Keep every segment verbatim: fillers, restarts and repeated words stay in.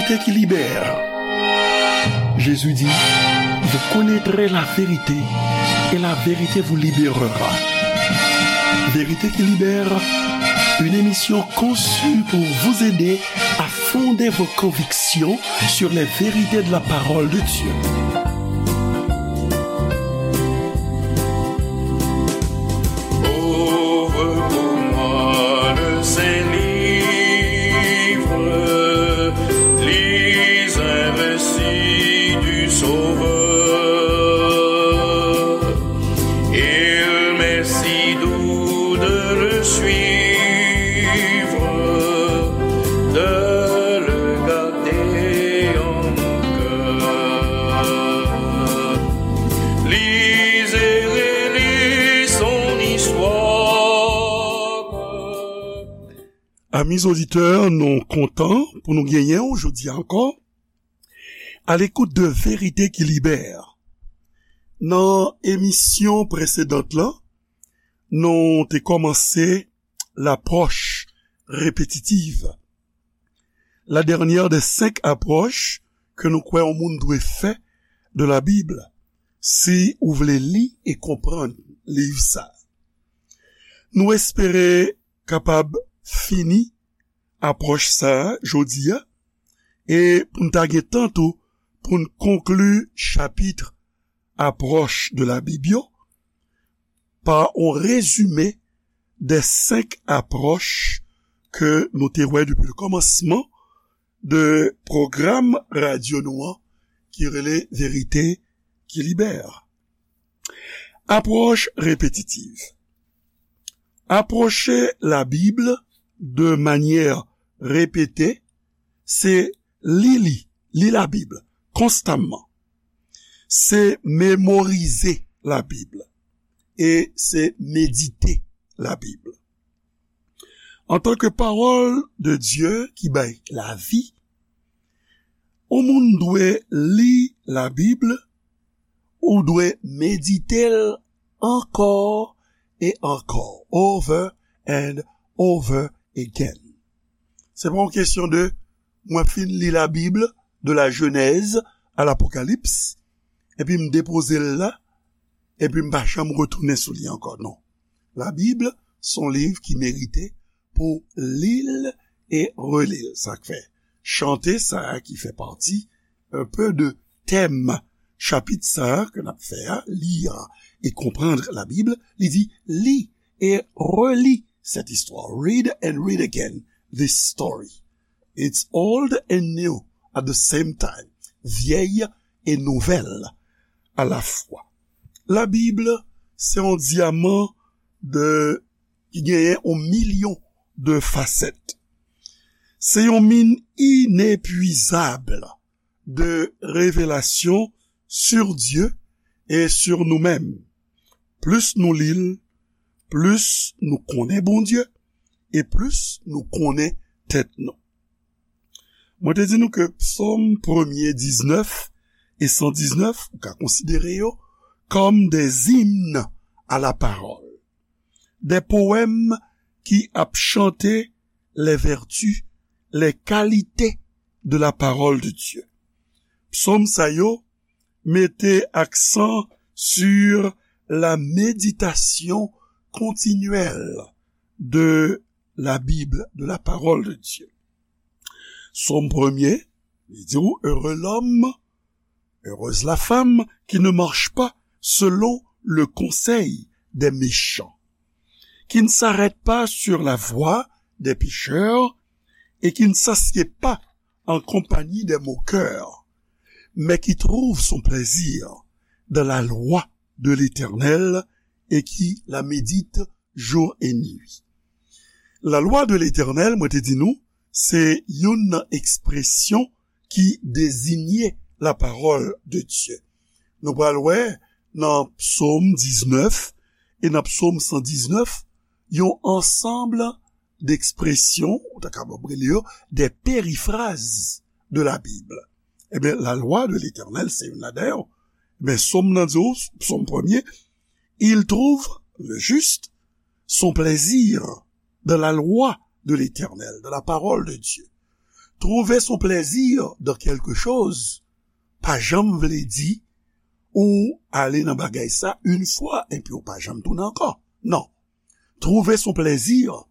Vérité qui libère. Jésus dit, vous connaîtrez la vérité et la vérité vous libérera. Vérité qui libère, une émission conçue pour vous aider à fonder vos convictions sur les vérités de la parole de Dieu. Ouvre pour moi le Saint-Livre, lis un récit du Sauveur. Il m'est si doux de le suivre, de le garder en mon cœur. Lis et relis son histoire. Amis auditeurs, nou kontan pou nou genyen w jodi a ankò. À l'écoute de Vérité qui libère. Nan emisyon presedant lan, nou te kòmanse lapwòch repetitiv. La dernière des cinq approches ke nou kwè yon moun dwe fè de la Bible, si ou vle li e konprann liv sa. Nou espere kapab fini apwòch sa a jodi a, e pou n ta gen tan tou pou n konkli chapit apwòch de la Bib yo pa yon rezime de senk apwòch ke nou te wè depi le kòmansman de pwogram radyo nou an ki rele Verite ki Libè. Apwòch repetitiv. Apwoche Labib de manyè repete, se li li, li Labib konstamman. Se memorize Labib e se medite Labib. Antanke pawòl de Dye ki bay lavi, yon moun dwe li Labib, ou dwe medite l ankò e ankò, over and over again. Se pa yon kesyon de mwen fin li Labib de la Jenèz a Lapokalips, epi m depoze l la, epi m pa janm retounen sou li ankò. Non. Labib se yon liv ki merite pou li l e reli l. Sa k fè chante sa a ki fè pati un peu de tèm chapit sa a ke n ap fè a, lire et comprendre la Bible, li di, li e reli cette histoire. Read and read again this story. It's old and new at the same time. Vyèy e nouvèl alafwa. Labib se yon dyaman de, ki genyen yon milyon de fasèt. Se yon min inepwizab de revelasyon sur Dieu et sur nous-mêmes. Plis nou li l, plis nou konnen Bondye e plis nou konnen tèt nou. Mwen te di nou ke Psòm premye diznèf e san diznèf, ou ka konsidere yo kòm des hymnes à la parole, des poèmes ki ap chante les vertus, les qualités de la parole de Dieu. Psòm sa yo mete aksan sur la méditation continuelle de la Bible, de la parole de Dieu. Psaume premier, li di ou, heureux l'homme, heureuse la femme qui ne marche pas selon le conseil des méchants, qui ne s'arrête pas sur la voie des pécheurs et qui ne s'assied pas en compagnie des moqueurs, mais qui trouve son plaisir dans la loi de l'Éternel et qui la médite jour et nuit. La loi de l'Éternel, mwen te di nou, se youn nan ekspresyon ki dezinye la parole de Dieu. Nou pral wè nan Psaume dix-neuf e nan Psaume cent dix-neuf yon ansanm d'expressions, ou ta kapab rele yo des périphrases de la Bible. Ebyen, la loi de l'Éternel, se youn ladan yo. Ebyen, Psaume nan di ou, Psaume premier, il trouve, le juste, son plaisir dans la loi de l'Éternel, dans la parole de Dieu. Trouver son plaisir dans quelque chose pa janm vle di ou ale nan bagay sa yon fwa epi ou pa janm tounen ankò. Non. Trouver son plaisir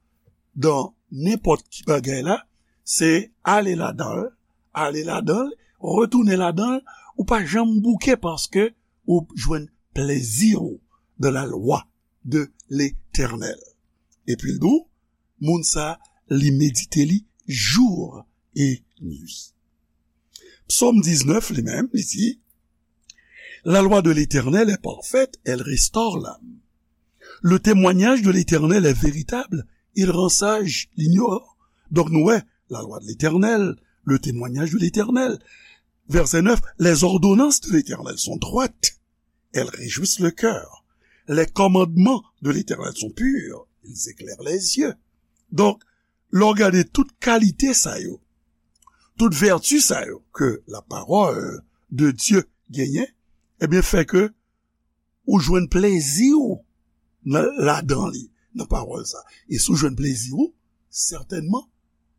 dans nenpòt ki bagay la, se ale ladan l, ale ladan l, retounen ladan l, ou pa janm bouke paske ou jwenn plezi w dans la loi de l'Éternel. Epi l di w, moun sa, li medite li jou e nwi. Psaume dix-neuf, li menm, li di, La loi de l'Éternel est parfaite, elle restaure l'âme. Le témoignage de l'Éternel est véritable, il rend sage l'ignorant. Donk nou wè, la loi de l'Éternel, le témoignage de l'Éternel. Verset neuf, les ordonnances de l'Éternel sont droites, elles réjouissent le cœur. Les commandements de l'Éternel sont purs, ils éclairent les yeux. Donk, lè w gade tout kalite sa yo, tout vèti sa yo ke la parole de Dieu genyen, ebyen, fè ke ou jwenn plezi w nan, ladan li, nan pawòl sa. E si w jwenn plezi w, sètènman,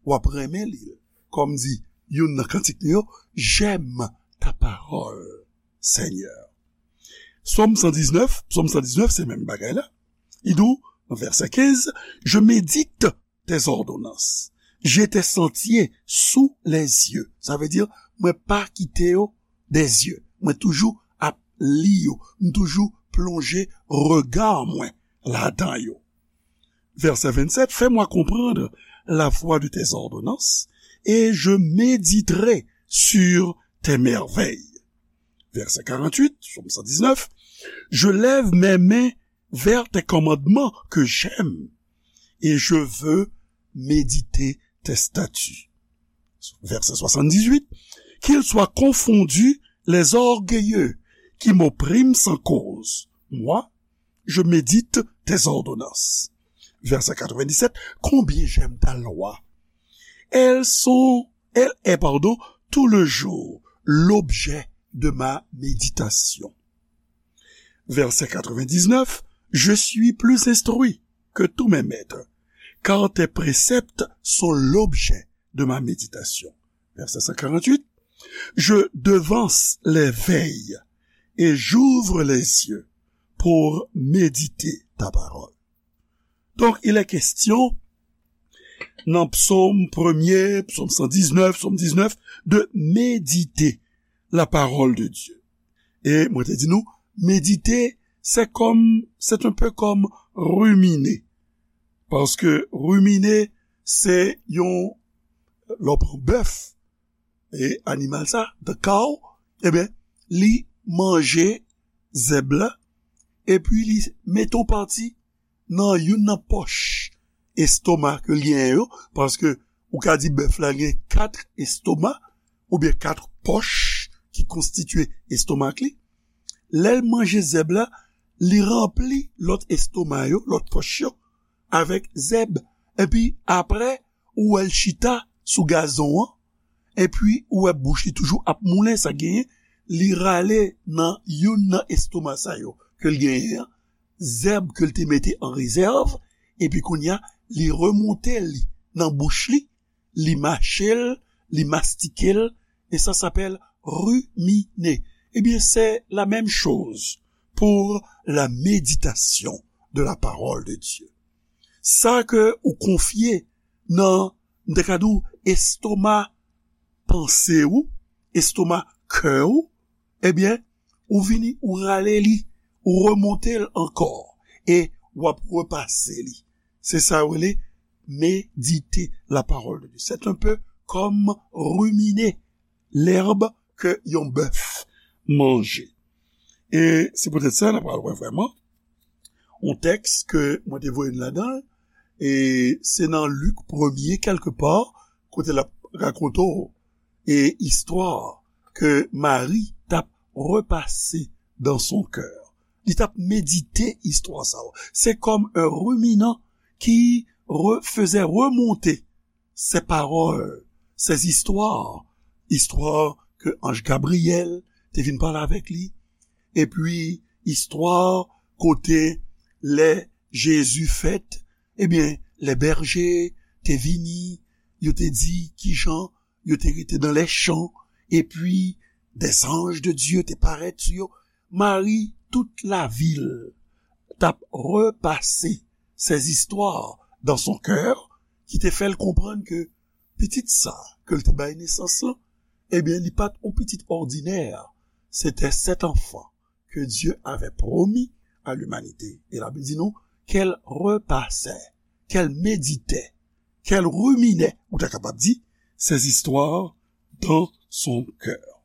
w ap renmen li. Kòm di youn nan kantik li yo, J'aime ta parole, Seigneur. Sòm san diznèf, Sòm san diznèf, se menm bagay la. Li di w, nan vèsè kenz, Je médite tes ordonnances. J'ai tes sentiers sous les yeux. Sa vle di, mwen pa kite yo des yeux. Mwen toujou ap li yo. M toujou plonje rega mwen ladan yo. Verset vingt-sept, Fais-moi comprendre la voie de tes ordonnances, et je méditerai sur tes merveilles. Verset quarante-huit, Psaume cent dix-neuf, Je lève mes mains vers tes commandements que j'aime, et je veux méditer tes statuts. Verset soixante-dix-huit, Qu'ils soient confondus les orgueilleux qui m'oppriment sans cause. Moi, je médite tes ordonnances. Verset quatre-vingt-dix-sept, Combien j'aime ta loi. Elles sont, elle est, pardon, tout le jour l'objet de ma méditation. Verset quatre-vingt-dix-neuf, Je suis plus instruit que tous mes maîtres, car tes préceptes sont l'objet de ma méditation. Verset cent quarante-huit, Je devance les veilles et j'ouvre les yeux pour méditer ta parole. Donk, il est question, nan Psaume premier, Psaume cent dix-neuf, Psaume dix-neuf, de méditer la parole de Dieu. E mwen te di nou, medite, se kòm, c'est un peu comme ruminer. Paske ruminer, se yon, lè w pran bèf, e animal sa, the cow, ebyen, li manje zèb la, epi li mete yon pati nan youn nan pòch estoma ke l genyen yo, paske ou ka di bèf la gen kat estoma, oubyen kat pòch ki konstitye estomak li. Lè l manje zèb la, li ranpli lòt estoma yo, lòt pòch yo, avèk zèb. Epi apre, ou wè l chita sou gazon an, epi ou wè bouch li toujou ap moulen, sa genyen, li rale nan youn nan estoma sa yo ke l genyen an, zèb ke l te mete an rezèv, epi kounye a, li remonte li nan bouch li, li mache l, li mastike l, et ça s'appelle ruminer. Eh bien, c'est la même chose pour la méditation de la parole de Dieu. Sa ke ou konfye nan, m te ka di w, estoma panse ou, estoma kè ou, ebyen, ou vini, ou rale li, ou remonte l ankò, e w ap repase li. Se sa yo rele méditer la parole de Dieu. C'est un peu comme ruminer l'herbe ke yon bèf manje. E se poutèt sa, n ap pral wè vrèman yon tèks ke mwen te voye n ladan l, e se nan Lik premye, kèlkepa, kote l ap rakonte w, e istwa ke Mari t ap repase dans son cœur. Li t ap medite istwa sa yo. Se kòm un ruminant qui re-, faisait remonter ces paroles, ces histoires, istwa ke anj Gabriyèl te vin pale avèk li, epi istwa kote lè Jezi fèt, ebyen, lè bèje te vini, yo te di kijan yo te rete dans les champs, epi des anges de Dieu te parèt sou yo. Mari, tout lavil t ap repase ces histoires dans son cœur, ki te fè l konprann ke pitit sa ke l te bay nesans lan, ebyen, li pa t yon pitit òdinè. C'était cet enfant que Dieu avait promis à l'humanité. E Labib di nou, qu'elle repassait, qu'elle méditait, qu'elle ruminait, ou ta kapab di, ces histoires dans son cœur.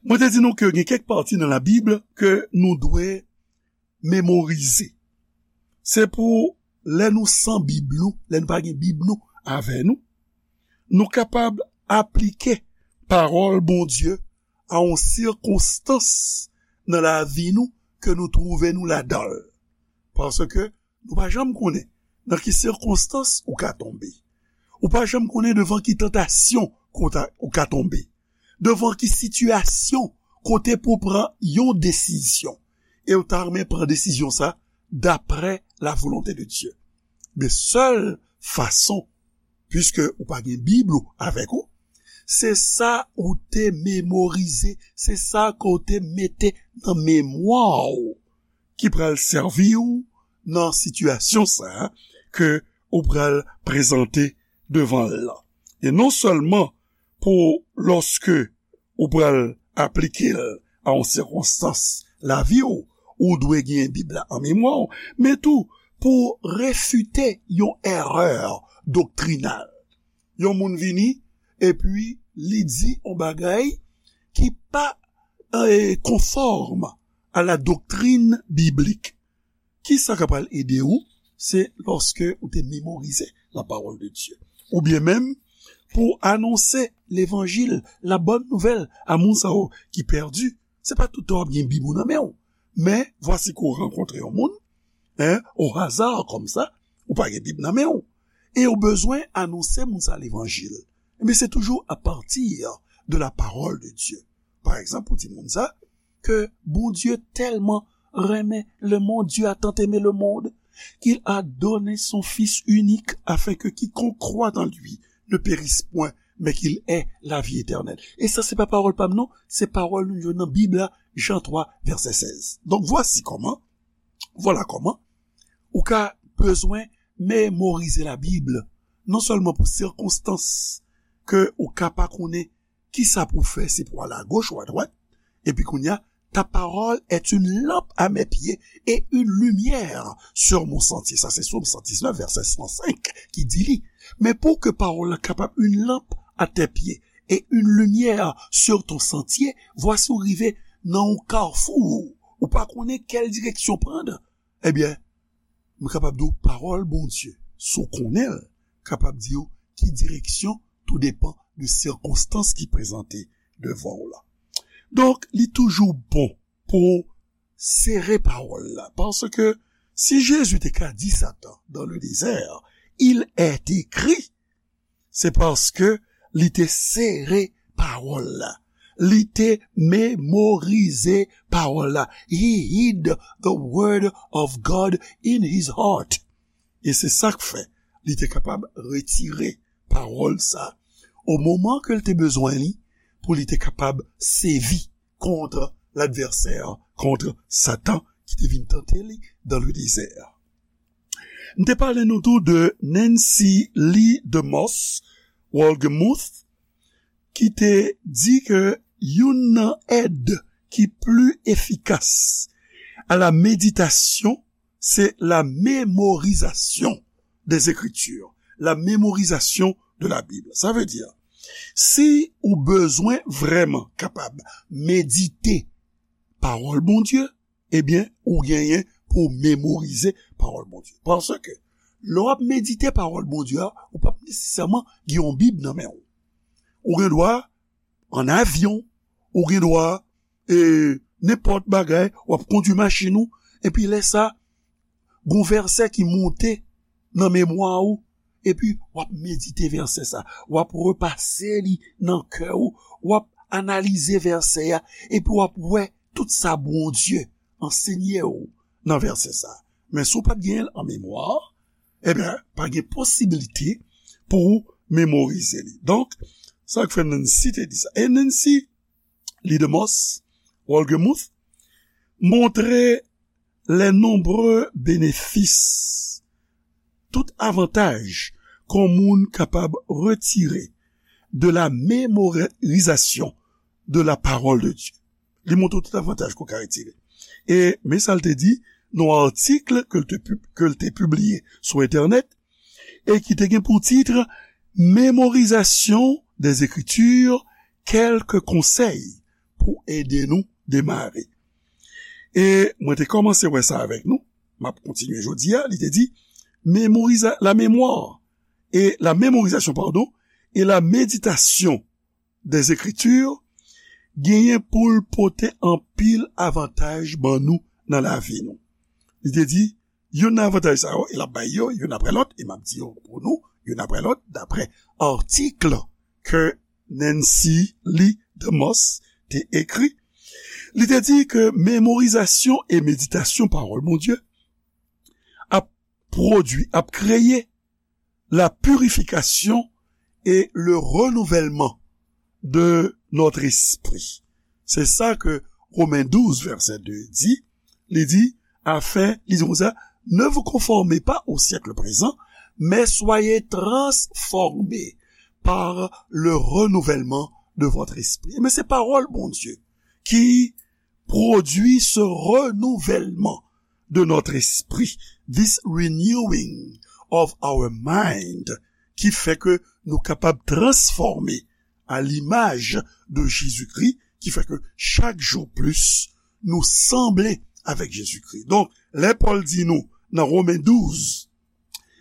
Mwen te di nou ke gen kèk pati nan Labib ke nou dwe memorize. Se pou lè nou san Bib nou, lè nou pa gen Bib nou avè nou, nou kapab aplike pawòl Bondye a yon sikonstans nan lavi nou ke nou twouve nou ladan l. Paske nou pa janm konnen nan ki sikonstans ou ka tonbe. Ou pa janm konnen devan ki tantasyon ou ka tonbe. Devan ki sitiyasyon kote pou w pran yon desizyon. E ou ta renmen pran desizyon sa daprè la volonte de Dye. Men sèl fason, piske ou pa gen Bib ou avèk ou, se sa ou te memorize, se sa ke w te mete nan memwa w ki pral sèvi w nan sitiyasyon sa a ke ou pral prezante devan l lan. E non sèlman pou lòske ou pral aplike l a yon sikonstans lavi w, ou dwe gen Bib la an memwa w, men tou pou refite yon erè doktrinal. Yon moun vini, epi li di yon bagay ki pa eh, konfòm a la doktrin biblik. Ki sa k pral ede w? Se lòske ou te memorize la pawòl de Dye. Oubyen menm pou anonse levanjil, la bòn nouvèl a moun sa yo ki pèdi. Se pa tout tan w ap gen Bib ou nan men w. Men, vwasi ke w rankontre yon moun, en, o haza kòmsa, ou pa gen Bib nan men w. E ou bezwen anonse moun sa levanjil. Ebyen, se toujou apati de la pawòl de Dye. Pa egzanp, ou di moun sa, que Bondye tèlman renmen le monde, Dieu a tant aimé le monde, qu'il a donné son Fils unique, afin que quiconque croit en lui ne périsse point, mais qu'il ait la vie éternelle. E sa, se pa pawòl pa m, non, se pawòl nou jwenn nan Bib la, Jan twa, vèsè sèz. Donk, vwasi kòman, vwala kòman, ou ka bezwen memorize Labib, non sèlman pou sikonstans ke ou ka pa konnen ki sa pou w fè, si pou w ale agoch ou adwat. Epi kounye a, ta parole est une lampe à mes pieds et une lumière sur mon sentier. Sa se Sòm san diznèf, vèsè san senk ki di li. Men pou ke pawòl la kapab une lampe à tes pieds et une lumière sur ton sentier, vwasi ou rive nan yon kafou, ou pa konnen kèl direksyon pran. Ebyen, m kapab di w pawòl Bondye, si w konnen l, kapab di w ki direksyon, tou depan de sikonstans ki prezante devan w la. Donk, li toujou bon pou w sere pawòl la, paske si Jezi te ka di Satan dans le désert, il est écrit, se paske li te sere pawòl la. Li te memorize pawòl la. He hid the word of God in his heart. E se sa k fè li te kapab retire pawòl sa o moman ke l te bezwen li pou li te kapab sèvi kont ladvèsè, kont Satan ki te vin tante li dans le désert. M te pale nou tou de Nancy Lee DeMoss Wolgemuth, ki te di ke youn nan èd ki pli efikas a la méditation, se la mémorisation des Écritures, la mémorisation de la Bible. Sa vle di, si ou bezwen vrèman kapab medite pawòl Bondye, ebyen, ou genyen pou w memorize pawòl Bondye. Paske, lè w ap medite pawòl Bondye a, ou p ap nesesèman gen yon Bib nan men w. Ou gen dwa ann avyon, ou gen dwa, e, nenpòt bagay, w ap kondui machin ou, epi lè sa, gon vèsè ki monte nan memwa ou, epi w ap medite vèsè sa, w ap repase li nan kè ou, w ap analize vèsè a, epi w ap wè tout sa Bondye ansenye w nan vèsè sa. Men si w pa t genyen l an memwa, ebyen, pa gen posiblite pou w memorize li. Donk, sa k fè Nancy te di sa. E Nancy Lee DeMoss Wolgemuth montre les nombreux bénéfices, tout avantaj ke yon moun kapab retire de la mémorisation de la parole de Dieu. Li montre tout avantaj ke w ka retire. E men sa l te di nan yon atik ke l te pib- ke l te pibliye sou entènèt e ki te gen pou tit Mémorisation des Écritures, quelques conseils pou ede nou demare. E mwen te kòmanse wè sa avèk nou. M ap kontinye jodi a. Li te di, mémoriza- la mémoire et la mémorisation, pardon, et la méditation des Écritures genyen pou l pote anpil avantaj ban nou nan lavi nou. Li te di, youn nan avantaj sa yo, e l ap bay yo youn apre lòt, e m ap di yo pou nou youn apre lòt, daprè atik ke Nancy Lee DeMoss te ekri. Li te di ke memorizasyon e meditasyon pawòl Bondye ap pwodui, ap kreye la purification et le renouvellement de notre esprit. Se sa ke Romen douz, vèsè de di. Li di, afin, li di konsa, ne vous conformez pas au siècle présent, mais soyez transformés par le renouvellement de votre esprit. Men se pawòl Bondye ki pwodui ce renouvellement de notre esprit, this renewing of our mind, ki fè ke nou kapab transfòme à l'image de Jésus-Christ, ki fè ke chak jou plis nou sanble avèk Jezikri. Donk, lè Pòl di nou nan Romen douz,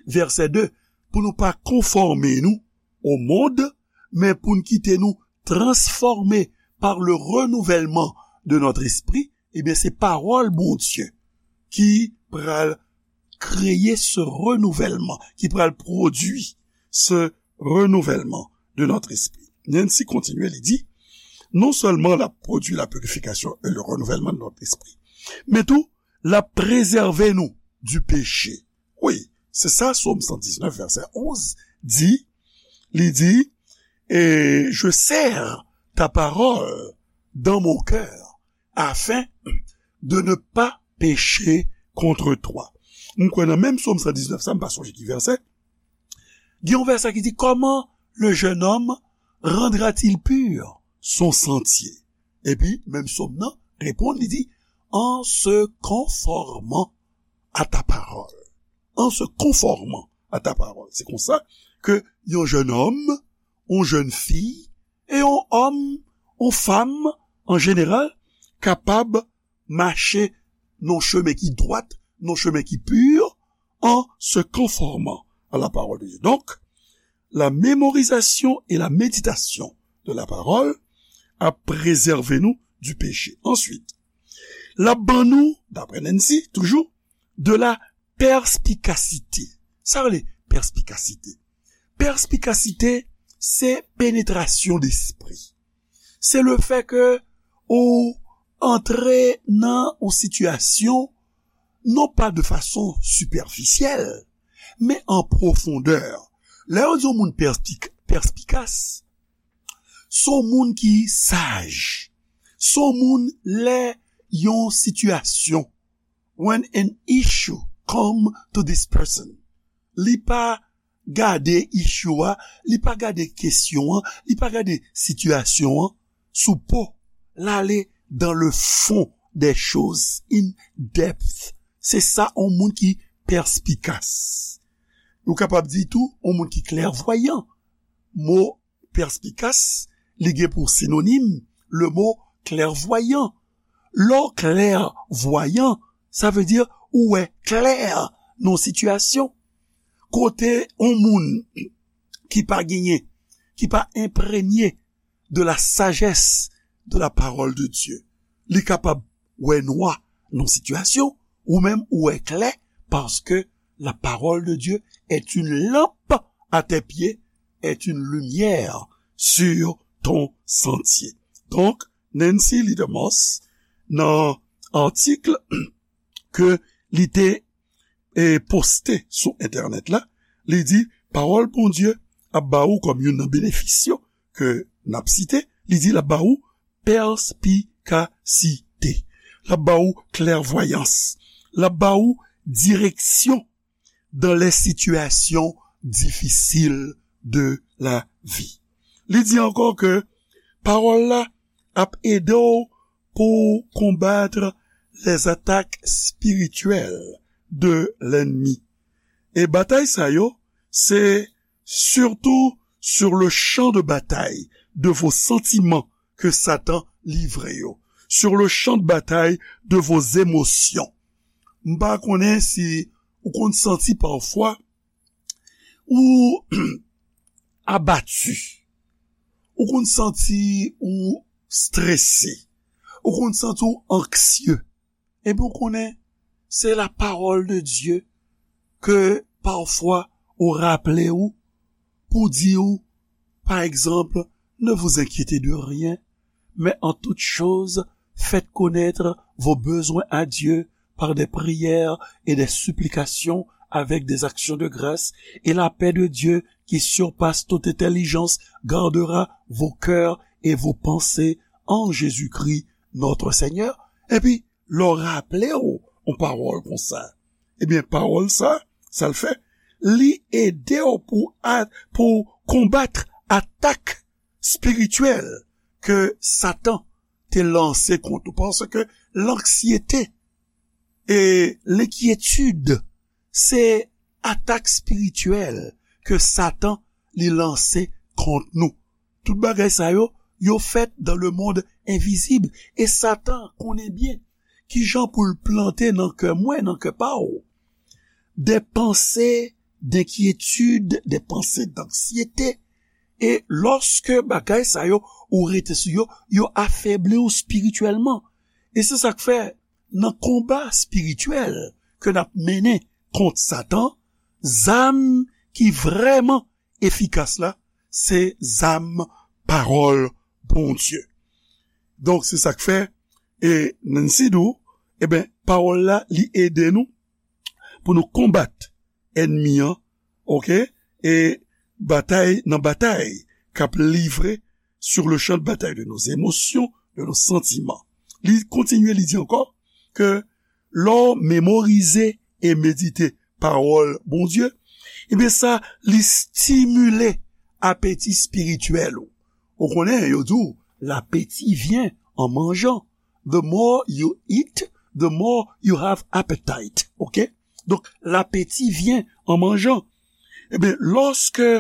vèsè de, pou nou pa konfòme nou au monde, men pou n kite nou transformés par le renouvellement de notre esprit, ebyen, se pawòl Bondye ki pral kreye ce renouvellement, ki pral pwodui ce renouvellement de notre esprit. Nancy kontinye, li di, non sèlman l ap pwodui la purification et le renouvellement de notre esprit, men tou, l ap prezève nou du péché. Wi, se sa, Sòm san diznèf, vèsè onz, di, li di, et je serre ta parole dans mon cœur, afin de ne pas pécher contre toi. M kwè nan menm Sòm san diznèf sa, m pa sonje ki vèsè. Gen yon vèsè ki di, comment le jeune homme rendra-t-il pur son sentier? Epi, menm Sòm nan reponn, li di, en se conformant à ta parole. En se conformant à ta parole. Se konsa ke yon jennonm, yon jennfi, e yon òm, yon fanm, an jeneral, kapab mache nan chemen ki dwat, nan chemen ki pur, en se conformant à la parole de Dieu. Donc, la mémorisation et la méditation de la parole ap prezève nou du péché. Answit, l ap ban nou, daprè Nancy, toujou, de la perspicacité. Sa rele perspicacité. Perspicacité, se penetrasyon despri. Se le fè ke ou antre nan yon sitiyasyon, non pa de fason sipèfisyèl, men an pwofondè. Lè yo di yon moun perspik- perspikas, se yon moun ki saj. Se yon moun lè yon sitiyasyon, when an issue come to this person, li pa gade issue a, li pa gade kesyon an, li pa gade sitiyasyon an sou po, l ale dans le fond des choses, in depth. Se sa yon moun ki perspikas. Ou kapab di tou, yon moun ki klèvwayan. Mo perspikas, li gen pou sinonim le mo klèvwayan. Lè w klèvwayan, sa vle di ou wè klè nan yon sitiyasyon. Kote yon moun ki pa genyen, ki pa enprenye de la sagesse de la parole de Dieu, li kapab wè nwa nan yon sitiyasyon, ou menm ou wè klè, parce que la parole de Dieu est une lampe à tes pieds, est une lumière sur ton sentier. Donk, Nancy Lee DeMoss, nan atik ke li te, e, poste sou entènèt la, li di, pawòl Bondye ap ba ou kòm youn nan benefis yo ke n ap site, li di l ap ba ou pèspikasite, l ap ba ou klèvwayans, l ap ba ou direksyon dans les situations difficiles de la vie. Li di ankò ke pawòl la ap ede w pou w konbat les attaques spirituelles de l'ennemi. E batay sa yo, se surtout sur le champ de bataille de vos sentiments ke Satan livre yo, sur le champ de bataille de vos émotions. M pa konnen si ou konn santi pafwa ou abati, ou konn santi ou strese, ou konn santi ou anksye. Epi ou konnen, se la parole de Dieu ke pafwa ou raple ou pou di ou, pa egzanp, ne vous inquiétez de rien, mais en toute chose, faites connaître vos besoins à Dieu par des prières et des supplications avec des actions de grâce, et la paix de Dieu qui surpasse toute intelligence gardera vos cœurs et vos pensées en Jésus-Christ notre Seigneur. Epi, lè w raple w yon pawòl konsa, ebyen, pawòl sa, sa l fè, li ede w pou, a- pou konbat atak espirityèl ke Satan te lanse kont ou. Paske lanksyete e lenkyetid, se atak espirityèl ke Satan li lanse kont nou. Tout bagay sa yo, yo fèt dans le monde invisible. E Satan konnen byen kijan pou l plante nan kè mwen, nan kè pa w, des pensées d'inquiétude, des pensées d'anxiété. E lòske bagay sa yo, ou rete sou yo, yo afebli w espirityèlman. E se sa k fè, nan konba espirityèl ke n ap mennen kont Satan, zam ki vrèman efikas la, se zam pawòl Bondye. Donk, se sa k fè, e Nancy di w, eben, pawòl la, li ede nou pou nou konbat ènmi an, oke? E batay, nan batay k ap livre sur le champ de bataille de nos émotions, de nos sentiments. Li kontinye, li di ankò ke lè w memorize e medite pawòl Bondye, ebyen sa, li stimile apeti espirityèl ou. Ou konnen, yo di w, l'appétit vient en mangeant. The more you eat, the more you have appetite. Oke? Donk, l'appétit vient en mangeant. Ebyen, lòske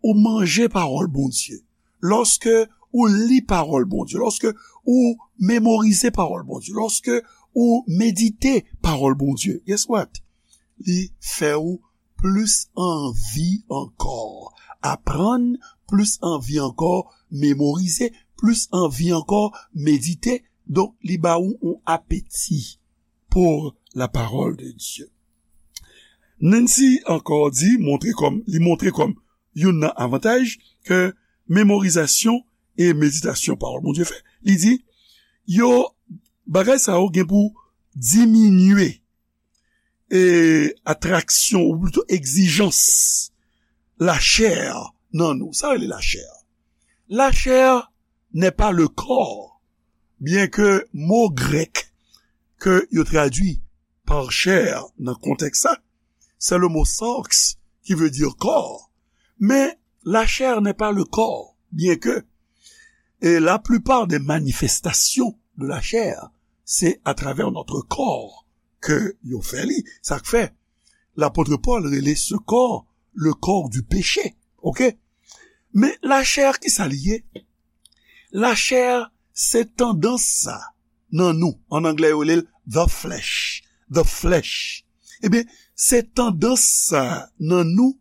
ou manje pawòl Bondye, lòske ou li pawòl Bondye, lòske ou memorize pawòl Bondye, lòske ou medite pawòl Bondye, guess what? Li fè ou plis anvi ankò aprann, plis anvi ankò memorize, plis anvi ankò medite. Donk, li ba ou yon apeti pour la parole de Dieu. Nancy ankò di, montre kòm, li montre kòm youn nan avantaj ke memorizasyon e meditasyon pawòl Bondye fè. Li di, yo, bagay sa yo gen pou diminye e atraksyon, ou plito egzijans lachè nan nou. Sa rele lachè. La chair n'est pas le corps, byen ke mo grèk ke yo tradui par chair nan kontèks sa, se le mo sarx ki vle di kò. Men la chair n'est pas le corps, byen ke, e la plupart des manifestations de la chair, se atravè notre corps ke yo fè li. Sa k fè, lapot Pòl rele se kò, le corps du péché. Oke? Men lachè, ki sa li ye? Lachè, se tandans sa nan nou. An anglè, yo rele l the flesh. The flesh. Ebyen, se tandans sa nan nou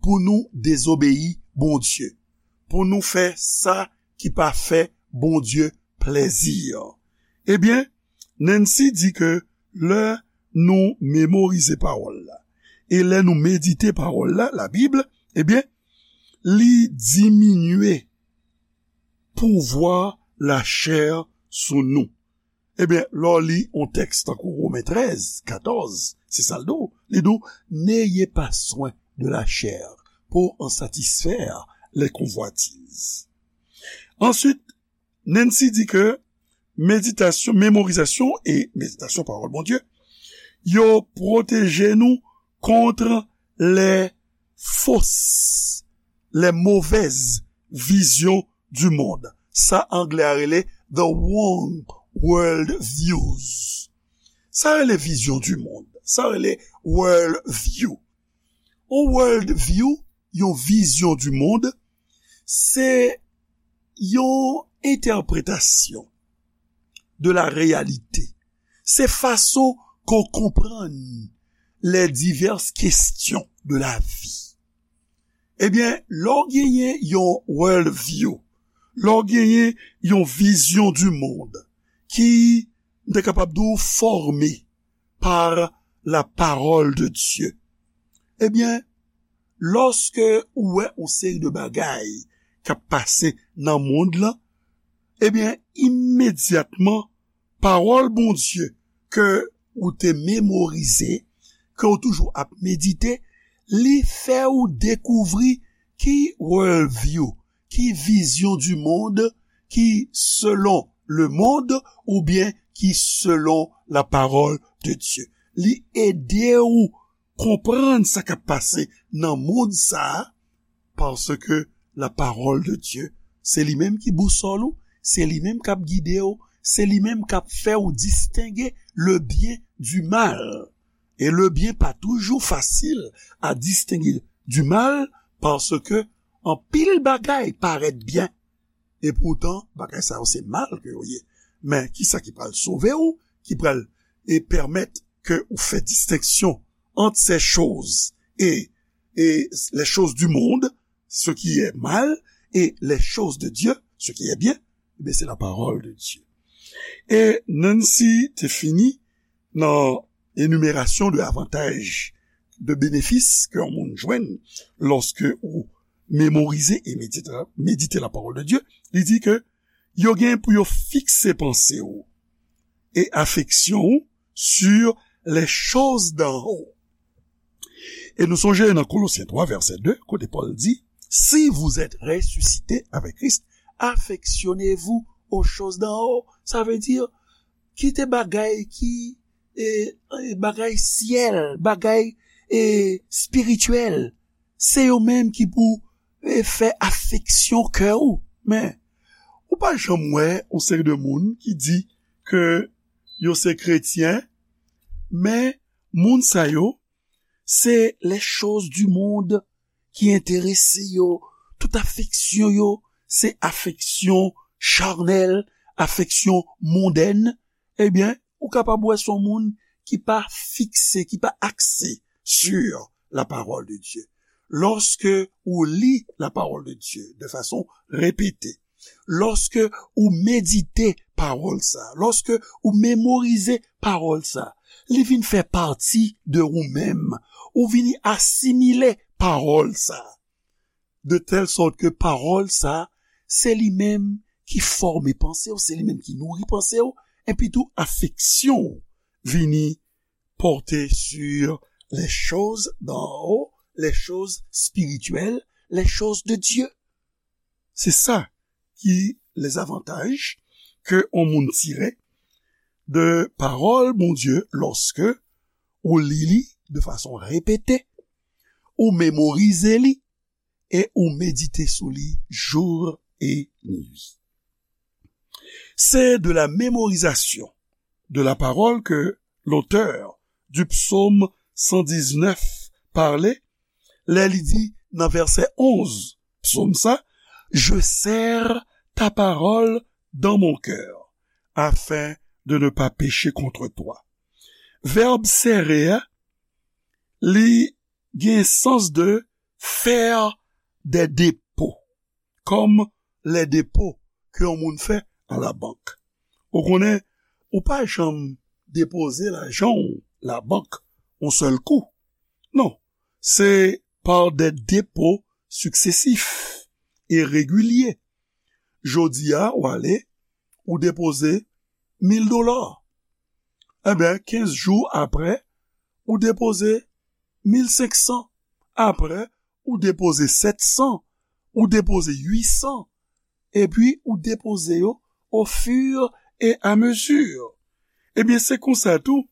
pou nou dezobeyi Bondye, pou nou fè sa ki pa fè Bondye plèzi. Ebyen, Nancy di ke lè nou memorize pawòl la, e lè nou medite pawòl la, Labib, ebyen, li diminye pouvwa lachè sou nou. Ebyen, lè w li yon tèks tankou Women trèz, katòz, se sa l di w. Li di w, n'ayez pas soin de la chair pour en satisfaire les convoitises. Ensuite, Nancy di ke meditasyon, memorizasyon e meditasyon pawòl Bondye, yo pwoteje nou kont les fausses, les mauvaises visions du monde. Sa anglè a rele the wrong world views. Sa rele vizyon du monde. Sa rele world view. Yon world view, yon vizyon du monde, se yon entèpretasyon de la réalité. Se fason ke w konprann les diverses questions de la vie. Ebyen, lè w genyen yon world view, lè w genyen yon vizyon du monde ki, m te kapab di w, fòme par la parole de Dieu. Ebyen, lòske ou wè yon seri de bagay k ap pase nan mond lan, ebyen, imedyatman, pawòl Bondye ke ou te memorize, ke ou toujou ap medite, li fè ou dekouvri ki world view, ki vizyon du monde ki selon le monde oubyen ki selon la parole de Dieu. Li ede ou konprann sa k ap pase nan mond sa a, paske la parole de Dieu, se li menm ki bousòl ou, se li menm k ap gide w, se li menm k ap fè w distenge le bien du mal. E le bien pa toujou fasil a distenge du mal, paske anpil bagay parèt byen, e poutan, bagay sa yo se mal ke yo ye. Men, kisa ki pral sove w, ki pral, e, pèmèt ke ou fè distenksyon ant ces choses et, et les choses du monde, ce qui est mal, et les choses de Dieu, ce qui est bien, ebyen, se la parole de Dieu. E Nancy te fini nan enimerasyon de avantaj, de benefis ke yon moun jwenn lòske ou memorize e medite, medite la parole de Dieu. Li di ke yo gen pou yo fikse panse w e afeksyon w sur les choses d'en haut. E nou sonje nan Kolosyen twa, vèsè de, kote Pòl di, si vous êtes ressuscités avec Christ, affectionnez-vous aux choses d'en haut. Sa vle di, kite bagay ki, e, e, bagay syèl, bagay, e, espirityèl. Se yo menm ki pou, e, fè afeksyon kè ou. Men, ou pa janm wè yon seri de moun ki di ke yo se kretyen, men moun sa yo, se les choses du monde ki enterese yo, tout afeksyon yo, se afeksyon charnèl, afeksyon mondèn, ebyen, ou kapab wè se yon moun ki pa fikse, ki pa akse sur la parole de Dieu. Lòske ou li la parole de Dieu de fason repete, lòske ou medite pawòl sa, lòske ou memorize pawòl sa, li vin fè pati de ou menm, ou vini asimile pawòl sa, de tèl sòt ke pawòl sa, se li menm ki fòme panse w, se li menm ki nouri panse w, epi tou afeksyon w vini porter sur les choses d'en haut, les choses spirituelles, les choses de Dieu. Se sa ki les avantages ke yon moun tire de pawòl Bondye lòske ou li li de fason repete, ou memorize li e ou medite sou li jour et nuit. C'est de la mémorisation de la parole que l'auteur du psaume cent dix-neuf parlait lè li di nan vèsè onz psaume sa, je serre ta parole dans mon cœur afin de ne pas pécher contre toi. Vèb sere a, li gen sans de faire des dépôts, comme les dépôts ke yon moun fè a la bank. Ou konnen, ou pa janm depoze lajan w la bank yon sèl kou. Non, se par des dépôts successifs et réguliers. Jodi a, ou ale, ou depoze mil dola. Ebyen, kenz jou apre, ou depoze mil senk san. Apre, ou depoze sèt san, ou depoze uit san, epi ou depoze yo au fur et à mesure. Ebyen, se konsa tou,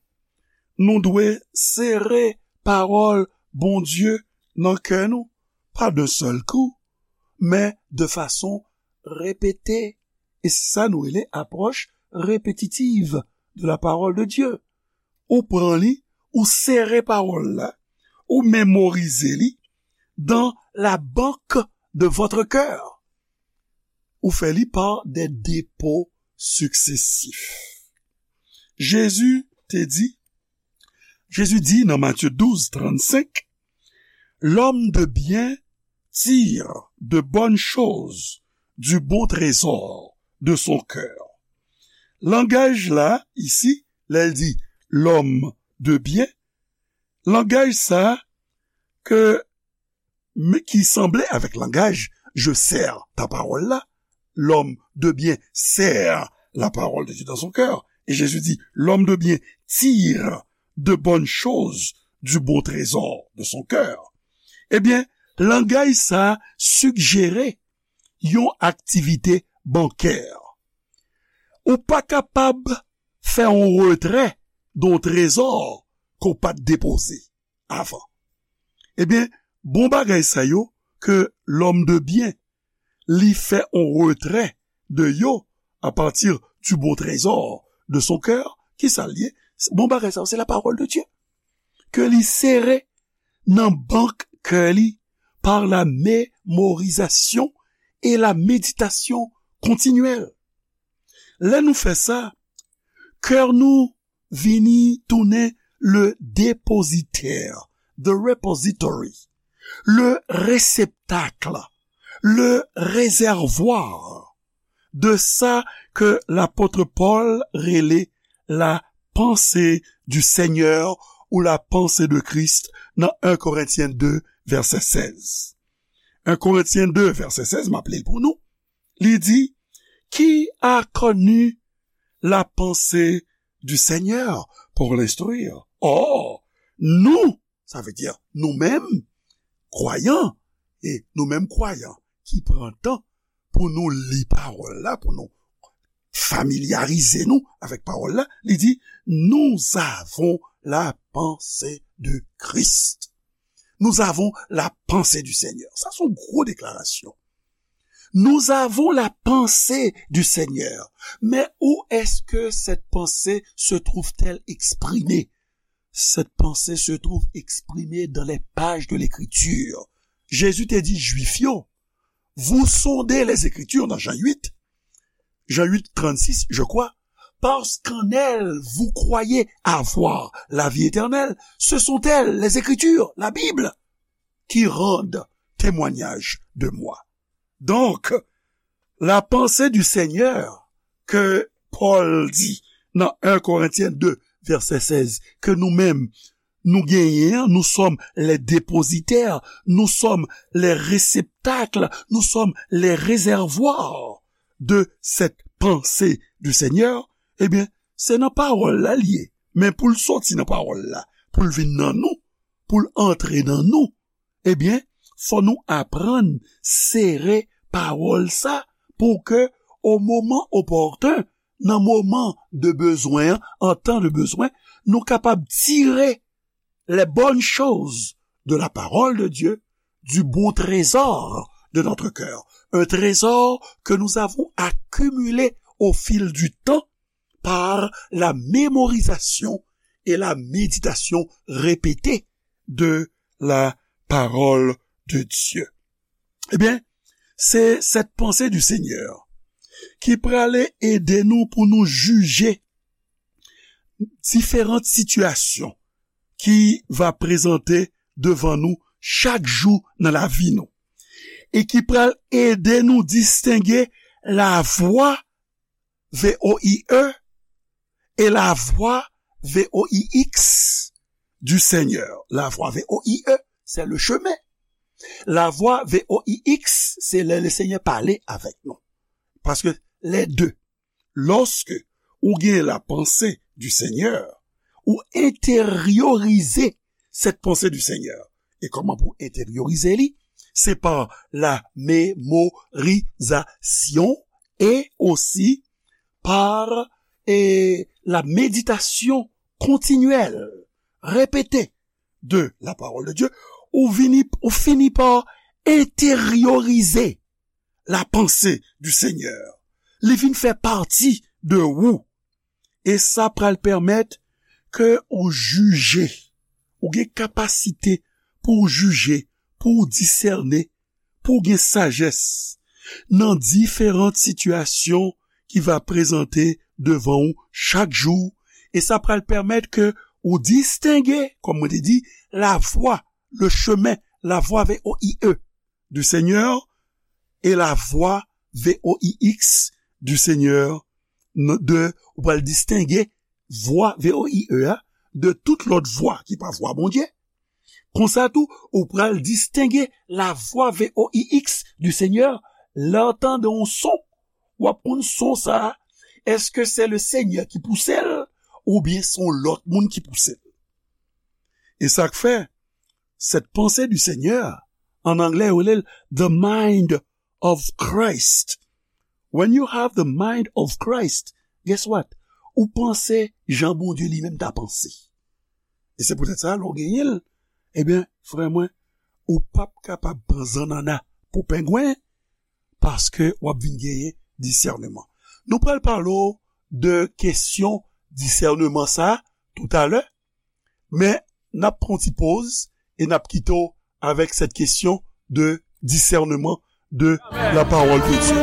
nou dwe sere pawòl Bondye nan kè nou, pa d'un seul coup, men de fason repete. E se sa nou rele apwòch repetitiv de la parole de Dieu. Ou pran li, ou sere pawòl la, ou memorize li dans la banque de votre cœur. Ou fè li par des dépôts successifs. Jezi te di, Jezi di nan Matye douz trannsenk, L'homme de bien tire de bonnes choses du bon trésor de son cœur. Langaj la, isi, lè l di l'homme de bien, langaj sa ke men ki sanble avèk langaj je sers ta parole la, l'homme de bien sert la parole de Dieu dans son cœur. Et Jésus dit, l'homme de bien tire de bonnes choses du bon trésor de son cœur. Ebyen, langaj sa sigjere yon aktivite bankè. Ou pa kapab fè yon retrè de yon trezò ke w pa t depoze avan. Ebyen, bon bagay sa yo ke l'homme de bien, li fè on retrè de yo à partir du bon trésor de son cœur, kisa l ye? Bon bagay sa yo, se la parole de Dieu. Ke li sere nan bank kè li par la mémorisation et la méditation continuelle. Lè nou fè sa, kè nou vini tounen le dépositaire, the repository, le réceptacle, le réservoir de sa ke lapot Pòl rele la pensée du Seigneur ou la pensée de Christ nan un Korentyen de vèsè sèz. Un Korentyen de vèsè sèz, m ap li l pou nou. Li di, qui a connu la pensée du Seigneur pour l'instruire? Or, nous, sa vle di nou menm, kwayan, e nou menm kwayan ki pran tan pou nou li pawòl la, pou nou familyarize nou avèk pawòl la, li di, nous avons la pensée de Christ. Nous avons la pensée du Seigneur. Sa se yon gwo deklarasyon. Nous avons la pensée du Seigneur. Mais où est-ce que cette pensée se trouve-t-elle exprimée? Cette pensée se trouve exprimée dans les pages de l'Écriture. Jésus te di Jwif yo, vous sondez les Écritures dans Jean huit, Jean huit trente-six, je crois, parce qu'en elles vous croyez avoir la vie éternelle. Ce sont elles, les Écritures, la Bible, qui rendent témoignage de moi. Donc, la pensée du Seigneur ke Pòl di nan un Korentyen de vèsè sèz, ke nou menm nou genyen an, nous sommes les dépositaires, nous sommes les réceptacles, nous sommes les réservoirs de cette pensée du Seigneur, ebyen, se nan pawòl la l ye. Men pou l soti nan pawòl la, pou l vin nan nou, pou l antre nan nou, ebyen, fò nou aprann sere pawòl sa pou ke, au moment opportun, nan moman de bezwen an, en temps de besoin, nou kapab tire les bonnes choses de la parole de Dieu, du bon trésor de notre cœur. Un trésor que nous avons accumulé au fil du temps par la mémorisation et la méditation répétée de la parole de Dieu. Ebyen, se cette pensée du Seigneur ki prale ede nou pou nou jije diferan sitiyasyon ki va prezante devan nou chak jou nan lavi nou e ki pral ede nou distenge la voie, V O I E, et la voie, V O I X, du Seigneur. La voie, V O I E, c'est le chemin. La voie, V O I X, se lè le Seigneur pale avèk nou. Paske les deux, lòske ou gen la pensée du Seigneur, ou enteryorize cette pensée du Seigneur, E kòman pou enteryorize li? Se pa la mémorisation et aussi par, eh, la méditation continuelle, répétée de la parole de Dieu, ou vini, ou fini pa enteryorize la pensée du Seigneur. Li vin fè pati de ou. E sa pral pèmèt ke ou jije, ou gen kapasite pou w jije, pou w disène, pou w gen sajès nan diferan sitiyasyon ki va prezante devan ou chak jou. E sa pral pèmèt ke ou distenge, kòm mwen te di, la voie, le chemin, la voie V O I E du Seigneur et la voie V O I X du Seigneur, n- de, ou pral distenge vwa V O I E a de tout lòt vwa ki pa vwa Bondye. Konsa tou, ou pral distenge la voix V O I X du Seigneur lè w tande yon son. W ap konn son sa a, èske se le Seigneur ki pouse l oubyen se yon lòt moun ki pouse l? E sa k fè, cette pensée du Seigneur, an anglè, yo rele l the mind of Christ. When you have the mind of Christ, guess what? Ou panse jan Bondye li menm ta panse. E se poutèt sa, lè w genyen l, ebyen, frè mwen, ou p ap kapab pran zannanna pou pengwen, paske w ap vin genyen disèneman. Nou pral pale w de kesyon disèneman sa a toutalè, men n ap pran yon ti poz e n ap kite w avec cette question de discernement de la parole de Dieu.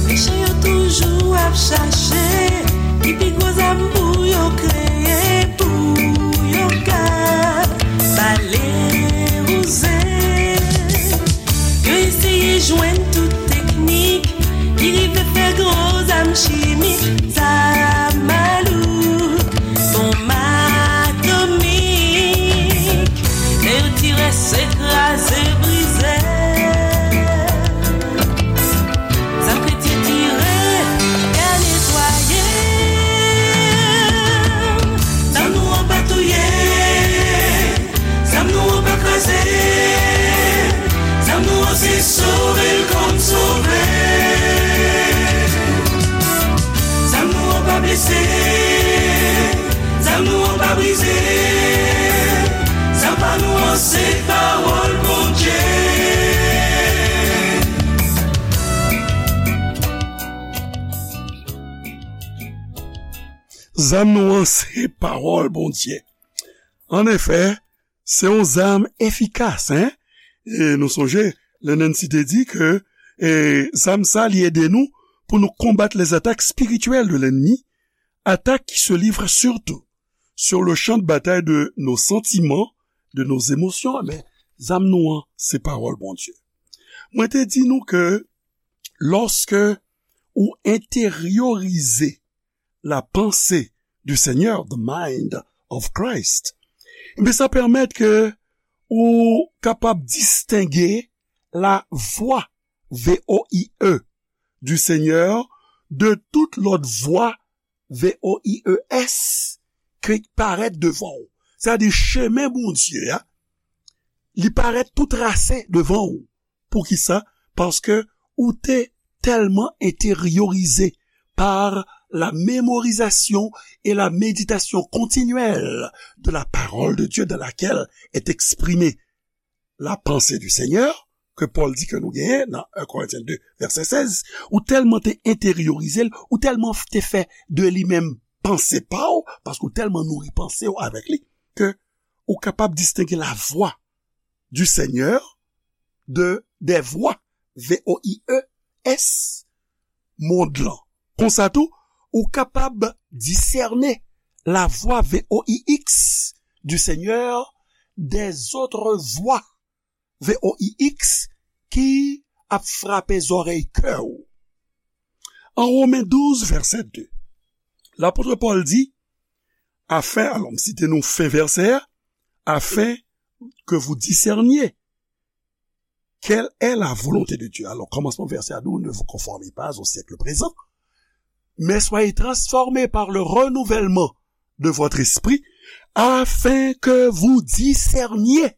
Mechan yo toujou ap chache ki pi gwo zam pou yo kreye, pou yo ka bale wouze. Yo eseye jwenn tout teknik ki rive fè gwo zam chimik, zam malouk, bonm atomik. Lè yo tire, se kraze, brize. Zam kretyen tire, y a netwaye. Zam nou an pa touye. Zam nou an pa kraze. Zam nou an se sove l konn sove. Zam nou an pa blese. Zam nou an pa brize. Zam pa nou an se pawòl Bondye. Zam nou an se pawòl Bondye. Annefè, se yon zam efikas, en? E nou sonje, lè Nancy te di ke, e, zam sa, li ede nou pou nou konbat les attaques spirituelles de l'ennemi, attaques qui se livrent surtout sur le champ de bataille de nos sentiments, de nos émotions. Men, zam nou an, se pawòl Bondye. Mwen te di nou ke lòske ou enteryorize la pensée du Seigneur, the mind of Christ, men sa pèmèt ke ou kapab distenge la voix, V O I E, du Seigneur de tout lòt vwa, V O I E S, ki parèt devan w. Sa di chemen Bondye a, li parèt tou trase devan w. Poukisa? Paske ou te tèlman enteryorize par la mémorisation et la méditation continuelle de la parole de Dieu dans laquelle est exprimée la pensée du Seigneur, ke Pòl di ke nou genyen nan un Corinthiens deux, vèsè sèz, ou tèlman te enteryorize l, ou tèlman te fè de li menm panse pa w, paske ou tèlman nouri panse w avèk li, ke ou kapab distenge la voix du Seigneur de, des voix, V O I E S, mond lan. Konsa tou, ou kapab disène la voix V O I X du Seigneur des autres voix V O I X ki ap frape zòrèy kè w. An Women douz, vèsè de, lapot Pòl di, afin, alò, m site nou fen vèsè a, afin que vous discerniez Quelle est la volonté de Dieu? Alors, commencement verset à nous, ne vous conformez pas au siècle présent, mais soyez transformés par le renouvellement de votre esprit, afin que vous discerniez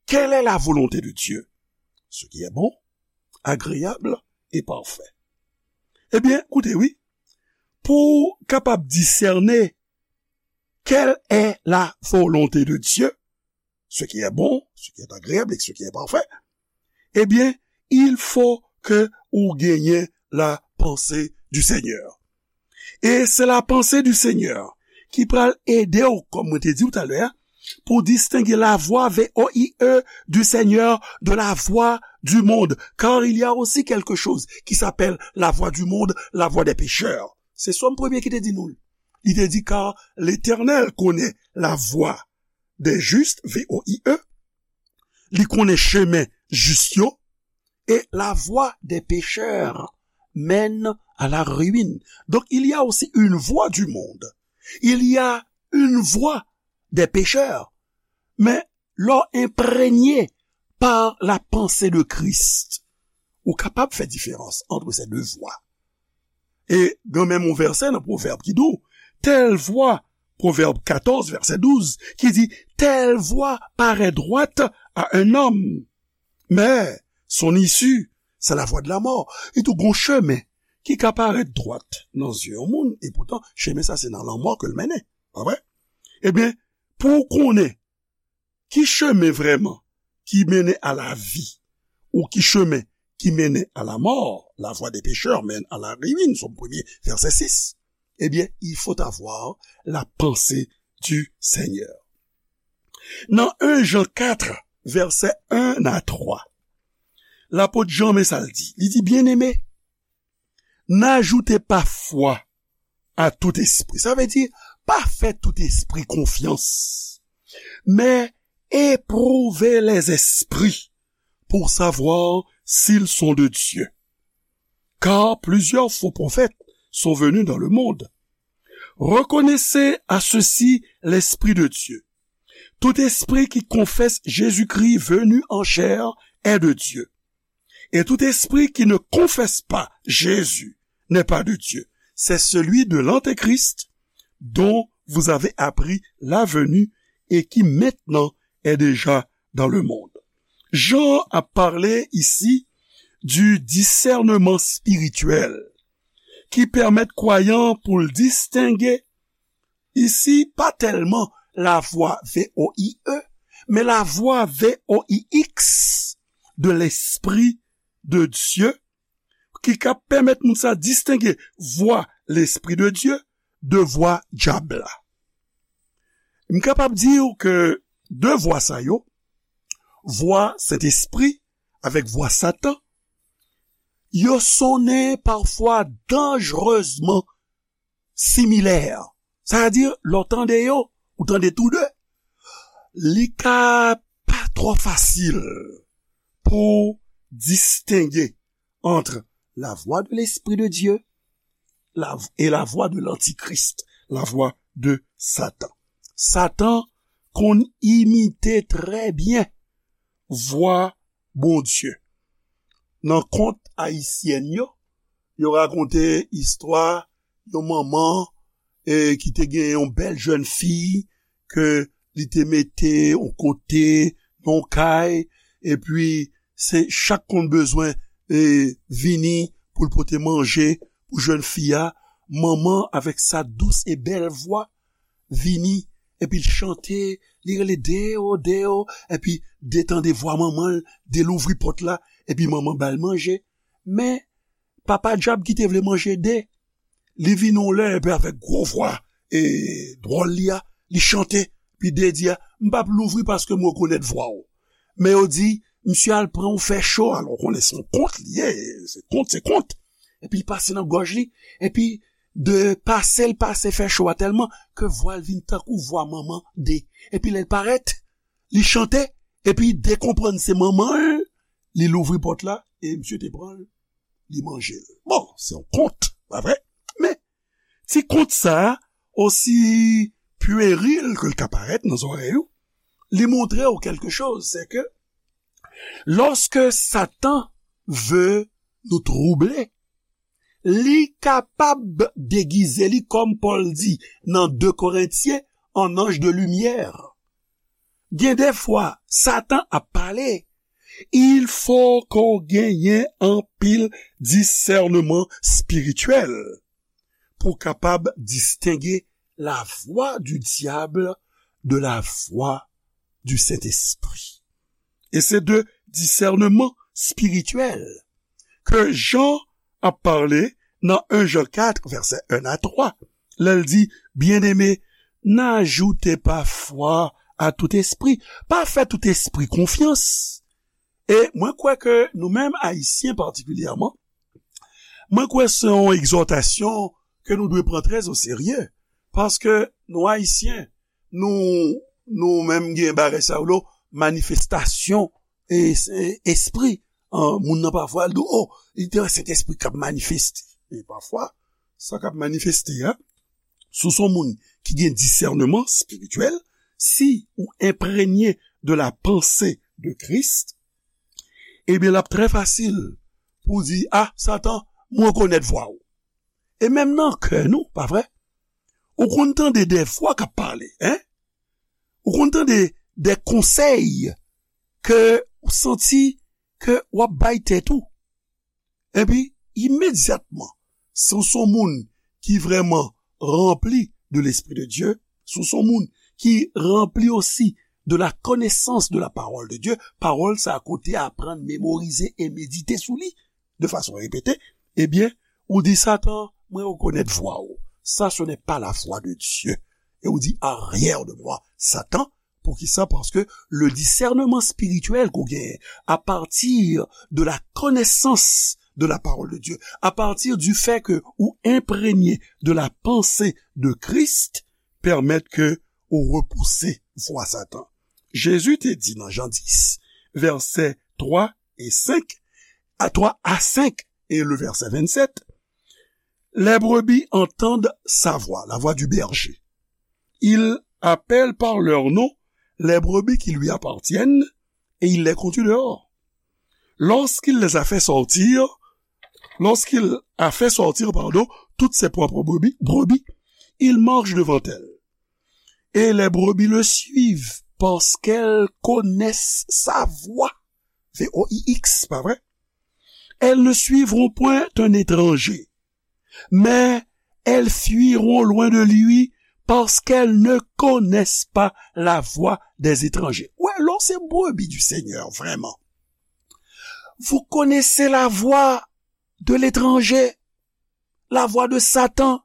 quelle est la volonté de Dieu, ce qui est bon, agréable et parfait. Ebyen, koute, wi, pou w kapab disène quelle est la volonté de Dieu, ce qui est bon, ce qui est agréable et ce qui est parfait, ebyen, il faut que ou genyen la pensée du Seigneur. E se la pensée du Seigneur ki pral ede w, kòm mwen te di w talè a, pou distenge la voix, V O I E, du Seigneur de la voix du monde. Car il y a aussi quelque chose qui s'appelle la voix du monde, la voix des pécheurs. Se Sòm premye ki te di nou l. Li te di, car l'Éternel connaît la voie des justes, V O I E. Li konnen chemen jis yo. Et la voie des pécheurs mène à la ruine. Donc, il y a aussi une voie du monde. Il y a une voie des pécheurs. Men lè w enpregne par la pensée de Christ, ou kapab fè diferans entre ces deux voies. E gen menm yon vèsè nan Pwovèb ki di w, telle voie, Pwovèb katòz, vèsè douz, ki di, telle voie paraît droite à un homme, mais son issue, c'est la voie de la mort. Li di w gon chemen ki ka parèt dwat nan zye yon moun, e poutan, chemen sa se nan lanmò ke l mennen. Pa vre? Ebyen, pou w konnen ki chemen vrèman ki mennen a la vi, ou ki chemen ki mennen a la mò, la voie des pécheurs mène à la ruine, Sòm premye, vèsè sis, ebyen, il faut avoir la pensée du Seigneur. Nan en Jan kat, vèsè en a twa, lapot Jan, men sa l di. Li di, Bien-aimés, n'ajoutez pas foi à tout esprit. Sa vle di, pa fè tout espri konfyans. Mais éprouvez les esprits pour savoir s'ils sont de Dieu. Car plusieurs faux prophètes sont venus dans le monde. Reconnaissez à ceux-ci l'Esprit de Dieu. Tout esprit qui confesse Jésus-Christ venu en chair est de Dieu. Et tout esprit qui ne confesse pas Jésus n'est pas de Dieu. C'est celui de l'Antéchrist dont vous avez appris la venue et qui maintenant est déjà dans le monde. Jan ap pale isi du discernement spirituel ki pèmèt kwayan pou l distenge isi pa tèlman la voix V O I E, men la voix V O I X de l'Esprit de Dieu, ki ka pèmèt moun sa distenge vwa Lespri de Dye de vwa dyab la. M kapab di w ke de vwa sa yo, vwa Sentespri avèk vwa Satan, yo sonnen pafwa danjerezman similè. Sa vle di, lè w tande yo, ou tande tou de, li ka pa twò fasil pou w distenge entre la voix de l'Esprit de Dieu la, et la voix de l'Antichrist, la voix de Satan. Satan konn imite trè byen vwa Bondye. Nan kont ayisyèn yo, yo rakonte istwa yon manman, e, ki te gen yon bèl jèn fi ke li te mete yon kote, nan yon kay, epi se chak konn bezwen, e, vini pou l pote manje pou jèn fi a. Manman avèk sa dous e bèl vwa vini, epi l chante, li rele Deo, Deo, epi de tande vwa manman l, de louvri pòt la, epi manman ba l manje. Men, papa dyab ki te vle manje de, li vin yon lè, epi avèk gwo vwa, e, dwòl li a, li chante, epi de di a, "M p ap louvri paske m rekonèt vwa w." Men yo di, "Misye al pran yon fè cho," alò w konnen se yon kont li ye, se kont, se kont. Epi l pase nan gòj li, epi de pase l pase fè cho a tèlman ke vwa l vin tankou vwa manman de. Epi lè l parèt, li chante, epi de konprann se manman l, li louvri pòt la, e misye te pran l, li manje l. Bon, se yon kont, pa vre? Men, ti kont sa a, osi pueril ke l ka parèt nan zòrèy ou, li montre w kèlke choz, se ke Lòske Satan vle nou twouble, li kapab degize li, kòm Pòl di nan de Korentyen, an anj de limyè. Gen de fwa, Satan ap pale. Il fo ke w genyen anpil disèneman espirityèl pou w kapab distenge la voix du diable de la voix du Saint-Esprit. E se de disèneman espirityèl ke Jan ap pale nan en Jan kat, vèsè en a twa, lè l di, Byeneme, n'ajoutez pas foi à tout esprit. Pa fè tout espri konfyans. E mwen kwè ke nou menm Ayisyen patikilyèman, mwen kwè se yon egzòtasyon ke nou dwe pran trè o serye, paske nou Ayisyen, nou, nou menm gen bagay sa yo, manifestasyon e, e, espri. An, moun nan pafwa, l di, "Oh, li te wè Sentespri k ap manifeste." E pafwa, sa k ap manifeste a, si w se yon moun ki gen disèneman espirityèl, si ou enprenye de la pensée de Christ, ebyen, l ap trè fasil pou w di, "Ah, Satan, mwen rekonèt vwa w." E menm nan kè nou, pa vre? Ou konn tande de vwa k ap pale, en? Ou konn tande de konsèy ke ou santi ke w ap bay tèt ou. Epi, imedyatman, si w se yon moun ki vrèman ranpli de Lespri de Dye, si w se yon moun ki ranpli osi de la connaissance de la parole de Dieu, pawòl sa a ke w te aprann, memorize e medite sou li de fason repete, ebyen, ou di, "Satan, mwen rekonèt vwa w. Ça, ce n'est pas la voix de Dieu." E ou di, "Arrière de moi, Satan." Poukisa? Paske le disèneman espirityèl ke w genyen, à partir de la connaissance de la parole de Dieu, à partir du fait que ou enprenye de la pensée de Christ, pèmèt ke ou repouse vwa Satan. Jezi te di nan Jan dis, vèsè twa e senk, a twa a senk, e le vèsè vennsèt, Les brebis entendent sa voix, la voix du berger. Il appelle par leur nom les brebis qui lui appartiennent et il les conduit dehors. Lorsqu'il les a fait sortir, lorsqu'il a fait sortir, pardon, toutes ses propres brebis, brebis, il marche devant elles. Et les brebis le suivent parce qu'elles connaissent sa voix. V O I X, pa vre? Elles ne suivront point un étranger, mais elles fuiront loin de lui parce qu'elles ne connaissent pas la voix des étrangers. Ou wè, lè w se brebis du Seigneur, vraiment, vous connaissez la voix de l'étranger, la voix de Satan.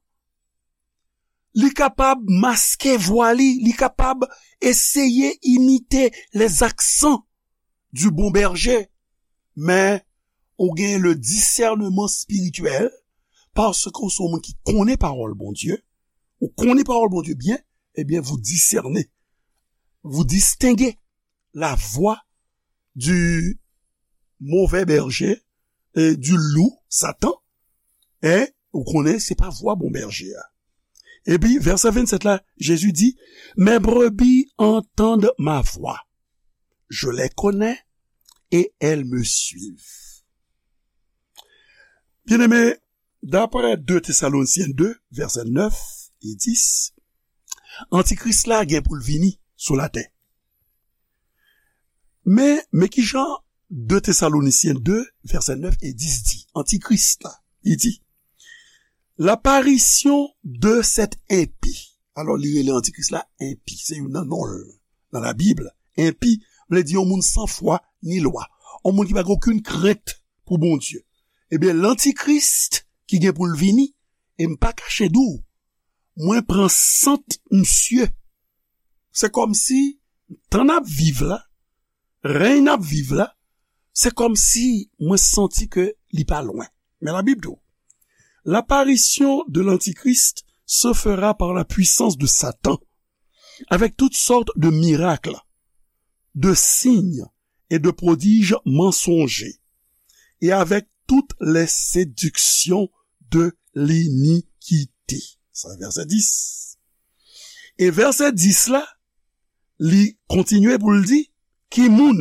Li kapab maske vwa li, li kapab eseye imite les accents du bon berger, men ou gen le disèneman espirityèl, paske ou se yon moun ki konnen pawòl Bondye, ou konnen pawòl Bondye byen, ebyen, vous discernez, vous distinguez la voix du mauvais berger, et du loup, Satan, e ou konnen se pa vwa bon bèje a. Epi, vèsè vennsèt la, Jezi di, Mes brebis entendent ma voix. Je les connais et elles me suivent. Byeneme, daprè de Tesalonisyen de, vèsè nèf e dis, Antikris la gen pou l vini sou latè. Men, men ki jan de Tesalonisyen de, vèsè nèf e dis di, Antikris la, li di, L'apparition de cet impie. Alò, li rele Antikris la enpi. Se youn nan non l nan Labib. Enpi vle di yon moun san fwa ni lwa. Yon moun ki pa gen okenn krent pou Bondye. Ebyen, Lantikris ki gen pou l vini, e m pa kache di w, mwen pran sant misye. Se kòmsi, tan n ap viv la, rèy n ap viv la, se kòmsi mwen santi ke li pa lwen. Men Labib di w, L'apparition de l'Antichrist se fera par la puissance de Satan, avec toutes sortes de miracles, de signes et de prodiges mensongers, et avec toutes les séductions de l'iniquité. Sa vèsè dis. E vèsè dis la, li kontinye pou l di, Ki moun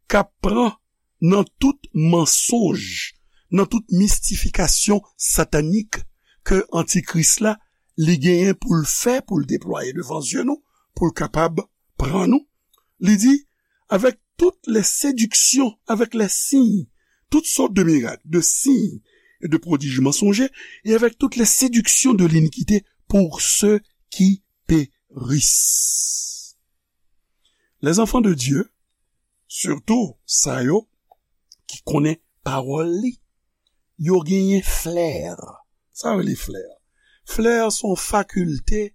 k ap pran nan tout mansonj, nan tout mistifikasyon satanik ke Antikris la, li genyen pou l fè, pou l deplwaye devan zye nou, pou l kapab pran nou. Li di, avec toutes les séductions, avec les signes, toutes sortes de miracles, de signes et de prodiges mensongers, et avec toutes les séductions de l'iniquité pour ceux qui périssent. Les enfants de Dieu, sitou sa yo ki konnen pawòl li, yo genyen flè. Sa yo rele flè? Flè se yon fakilte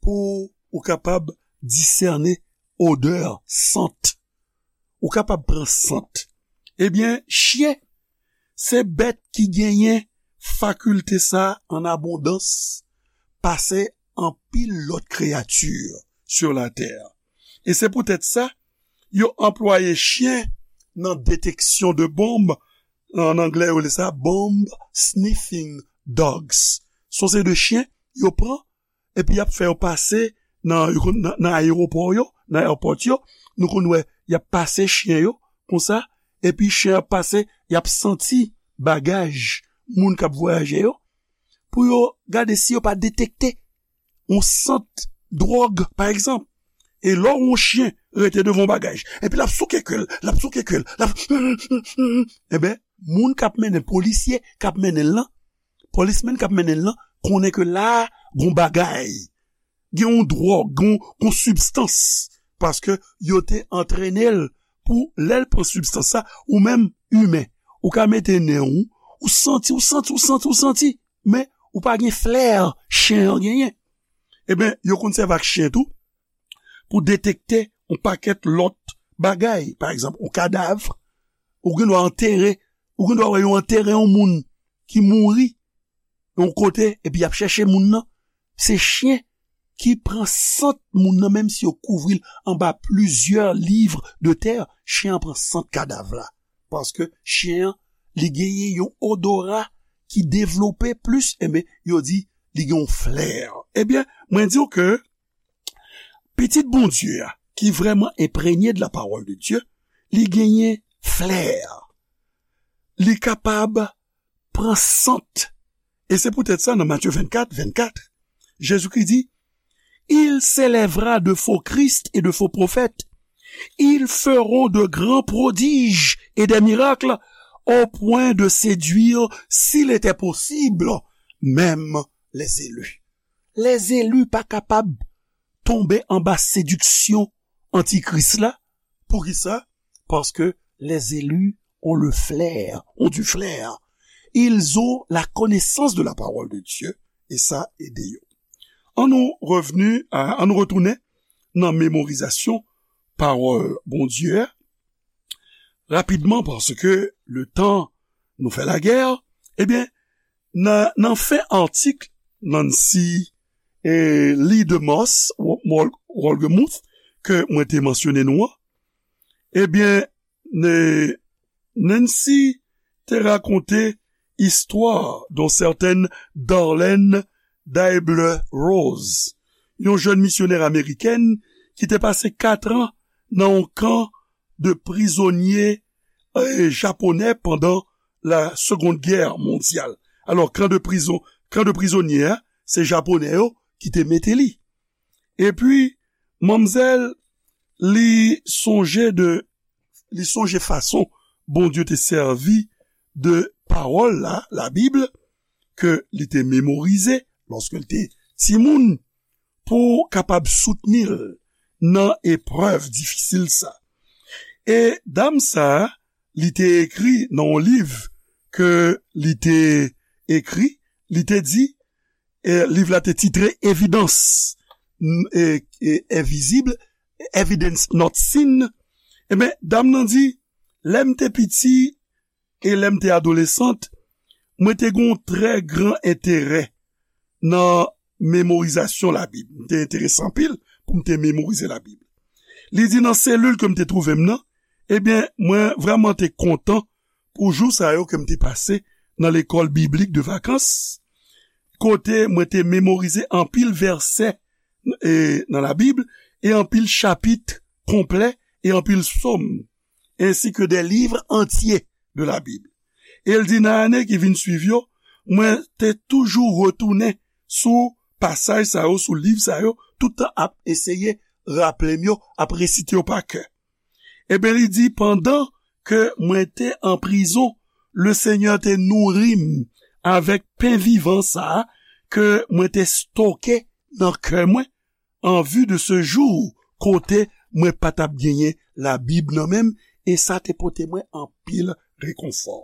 pou ou kapab disène odè, sant. Ou kapab pran sant. Ebyen, chen se bèt ki genyen fakilte sa an abondans pase anpil lòt kreyati sou latè. E se poutèt sa, yo anplwaye chen nan deteksyon de bonb. An anglè, yo rele sa bomb sniffing dogs. Se yon seri de chen yo pran, epi y ap fè yo pase nan, yo konn, nan, nan ayewopò yo, nan airport yo. Nou konn wè, y ap pase chen yo, konsa, epi chen ap pase, y ap santi bagaj moun k ap vwayaje yo, pou yo gade si yo pa detekte yon sant dwòg, pa egzanp. E lè yon chen rete devan yon bagaj, epi l ap souke ke l, l ap souke ke l, l ap, enben, moun k ap mennen, polisye k ap mennen l lan, polismen k ap mennen l lan, konnen ke la, gon bagay, gen yon dwòg, gon, gon sibstans, paske yo te antrene l pou lè l pran sibstans sa, ou menm, imen, ou ka mete nen w, ou santi, ou santi, ou santi, ou santi, men ou pa gen flè chen an genyen. Ebyen, yo konn sèvi ak chen tou pou detekte yon pakèt lòt bagay. Pa egzanp, yon kadav, ou gen dwa antere, ou gen dwa wè yo antere yon moun ki mouri yon kote, epi y ap chèche moun nan. Se chen ki pran sant moun nan, menm si yo kouvri l anba plizyè liv de tè, chen an pran sant kadav la. Paske chen an, li genyen yon odora ki devlope plis, enben, yo di, li gen yon flè. Ebyen, mwen di w ke pitit Bondye a, ki vrèman enprenye de la parole de Dieu, li genyen flè. Li kapab pran sant. E se poutèt sa, nan Matye vennkat, vennkat, Jezikri di, Il s'élèvera de faux Christ et de faux prophètes. Ils feront de grands prodiges et des miracles au point de séduire, s'il était possible, même les élus. Lèzeli pa kapab tonbe anba sediksyon antikris la. Poukisa? Paske les élus ont le flair, ont du flair. Ils ont la connaissance de la parole de Dieu, e sa ede yo. An nou revni a, an nou retounen nan memorizasyon pawòl Bondye a, rapidman, paske le tan nou fè lagè, ebyen, nan, nan fen atik Nancy e Lee DeMoss, Wol-, Wolgemuth, ke mwen te mansyone nou an, ebyen, ne-, Nancy te rakonte istwa d'une certaine Darlene Deibler Rose, yon jèn misyonè amerikèn ki te pase kat an nan yon kan de prizonye, eh, japonè pandan la Seconde Guerre mondiale. Alò, kan de prizon, kan de prizonye a, se japonè yo ki te mete li. Epi, manmzèl, li sonje de, li sonje fason Bondye te sèvi de pawòl la, Labib, ke li te memorize lòske l te timoun, pou kapab soutni l nan eprèv difisil sa. E dam sa, li te ekri nan yon liv ke li te ekri, li te di, e liv la te titre Evidence, n-, e, e, Invisible, Evidence Not Seen. Ebyen, dam nan di, lè m te piti e lè m te adolesant, mwen te gen yon trè gran enterè nan memorizasyon Labib. M te enterese anpil pou m te memorize Labib. Li di, nan selil ke m te twouve m nan, ebyen, mwen vrèman te kontan pou jou sa yo ke m te pase nan lekòl biblik de vakans, kote mwen te memorize anpil vèsè, e, nan Labib, e anpil chapit konplè, e anpil sòm. ainsi que des livres entiers de la Bible. E l di, nan ane ki vin swiv yo, mwen te toujou retounen sou pasaj sa yo, sou liv sa yo, tout tan ap eseye raple m yo, ap resite yo pa kè. Ebyen, li di, pandan ke mwen te an prizon, Lesenyè te nouri m avèk pen vivan sa a ke mwen te stoke nan kè mwen, an vi de se jou kote mwen pa t ap genyen Labib nan men m, e sa te pote mwen anpil rekonfò.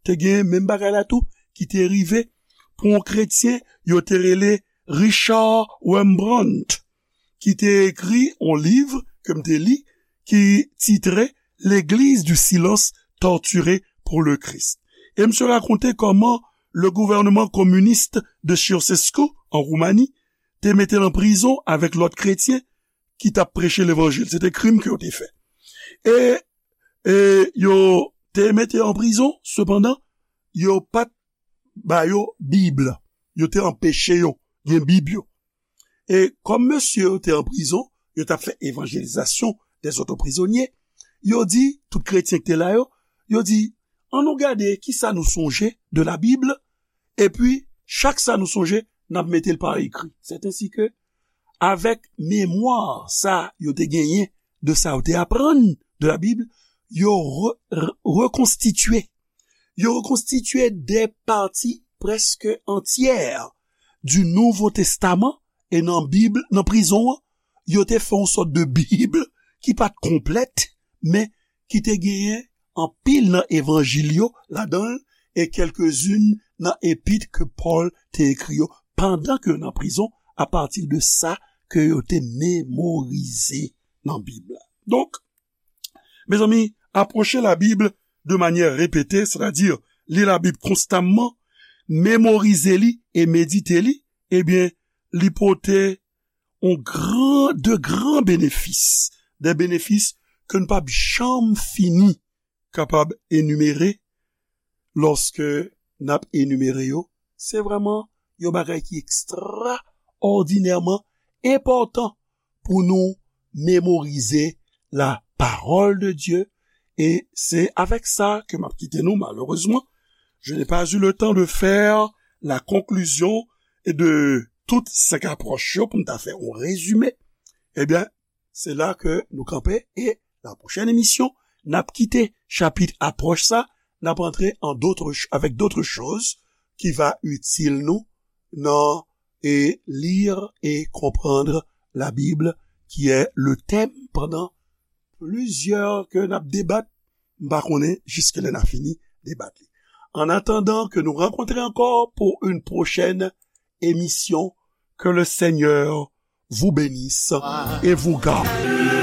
Te gen menm bagay la tou ki te rive pou yon kretyen yo te rele Richard Rembrandt, ki te ekri yon liv ke m te li, ki titre L'Église du silence torturée pour le Christ. E misye rakonte kòman le gouvernement communiste de Ceausescu, an Roumani, te mete l an prizon avèk lòt kretyen ki t ap preche levanjil. Se te krim ke yo te fè. E, e yo te mete yo an prizon, sepandan, yo pa t ba yo Bib. Yo te anpeche yo gen Bib yo. E kòm mesye yo te an prizon, yo t ap fè evanjelizasyon dèzòt prizonye, yo di, tout kretyen ki te la yo, yo di, ann nou gade kisa nou sonje de la Bible, epi chak sa nou sonje, n ap mete l pa ekri. C'est ainsi que, avèk memwa sa yo te genyen de sa yo te aprann de la Bible, yo re- re- rekonstitye, yo rekonstitye de pati prèske antyè du Nouveau Testament, e nan Bib, nan prizon an, yo te fè yon sòt de Bib ki pa t konplèt, men ki te genyen anpil nan evanjil yo ladan l, e kèlkezin nan epit ke Pòl te ekri yo, pandan ke yo nan prizon, apati de sa ke yo te memorize nan Bib la. Donk, mezanmi, apwoche Labib de manyè repete, sètadi li Labib konstamman, memorize li e medite li, ebyen, li pote yon gran, de gran benefis, de benefis ke n p ap janm fini kapab enimere lòske n ap enimere yo. Se vrèman yon bagay ki ekstraòdinèman enpòtan pou nou mémoriser la parole de Dieu. E se avèk sa ke m ap kite nou, malerezman. Je n'ai pas eu le temps de faire la conclusion de tout senk apwòch yo pou m ta fè yon rezime. Ebyen, se la ke nou kanpe e la pwochèn emisyon, n ap kite chapit apwòch sa, n ap antre an d'autres ch- avec d'autres choses qui va utile nou nan e lire et comprendre la Bible, qui est le thème pendant plusieurs ke n ap debat. M pa konnen jiske lè n a fini debat li. En attendant que nous rencontrons encore pour une prochaine émission, que le Seigneur vous bénisse et vous garde.